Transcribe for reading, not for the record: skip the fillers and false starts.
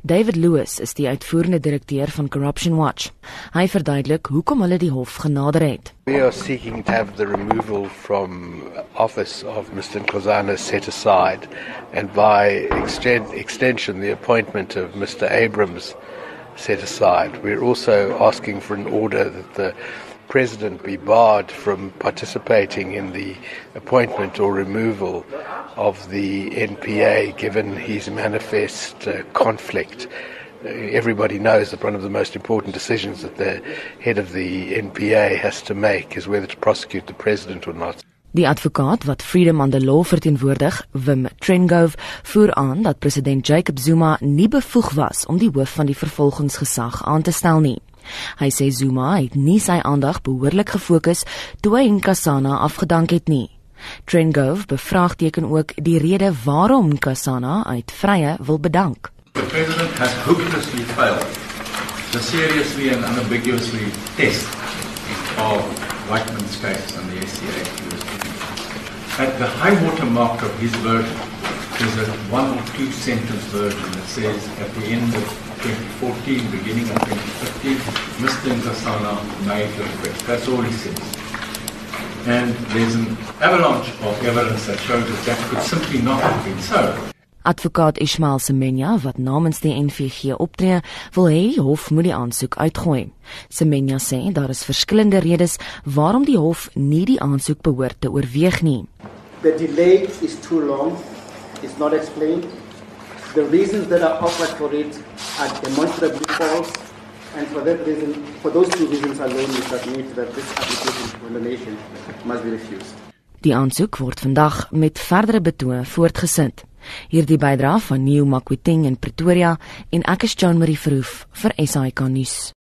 David Lewis is die uitvoerende direkteur van Corruption Watch. Hy verduidelik hoekom hulle die hof genader het. We are seeking to have the removal from office of Mr. Nkosana set aside, and by extension the appointment of Mr. Abrams set aside. We're also asking for an order that the President be barred from participating in the appointment or removal of the NPA, given his manifest conflict. Everybody knows that one of the most important decisions that the head of the NPA has to make is whether to prosecute the President or not. Die advokaat wat Freedom on the Law verteenwoordig, Wim Trengove, voer aan dat president Jacob Zuma nie bevoeg was om die hoof van die vervolgingsgesag aan te stel nie. Hy sê Zuma het nie sy aandag behoorlik gefokus toe hy Nkosana afgedank het nie. Trengove bevraagteken ook die rede waarom Nkosana uit vrye wil bedank. The President has hopelessly failed to seriously and unambiguously test of Whiteman's case and the SCA. At the high water mark of his version is a 1 or 2 sentence version that says at the end of 2014, beginning of 2015, Mr. Nkosana made the request. That's all he says. And there's an avalanche of evidence that shows that could simply not have been so. Advokaat Ishmael Semenya, wat namens die NVG optree, wil hê die hof moet die aansoek uitgooi. Semenya sê daar is verskillende redes waarom die hof nie die aansoek behoort te oorweeg nie. The delay is too long, it's not explained. The reasons that are offered for it are demonstrably false, and for that reason, for those 2 reasons alone, we submit that this application for the nation must be refused. Die aansoek word vandag met verdere betoë voortgesit. Hierdie bydra van Nieu Makweteng in Pretoria en ek is Jean Marie Verhoef vir SAK nuus.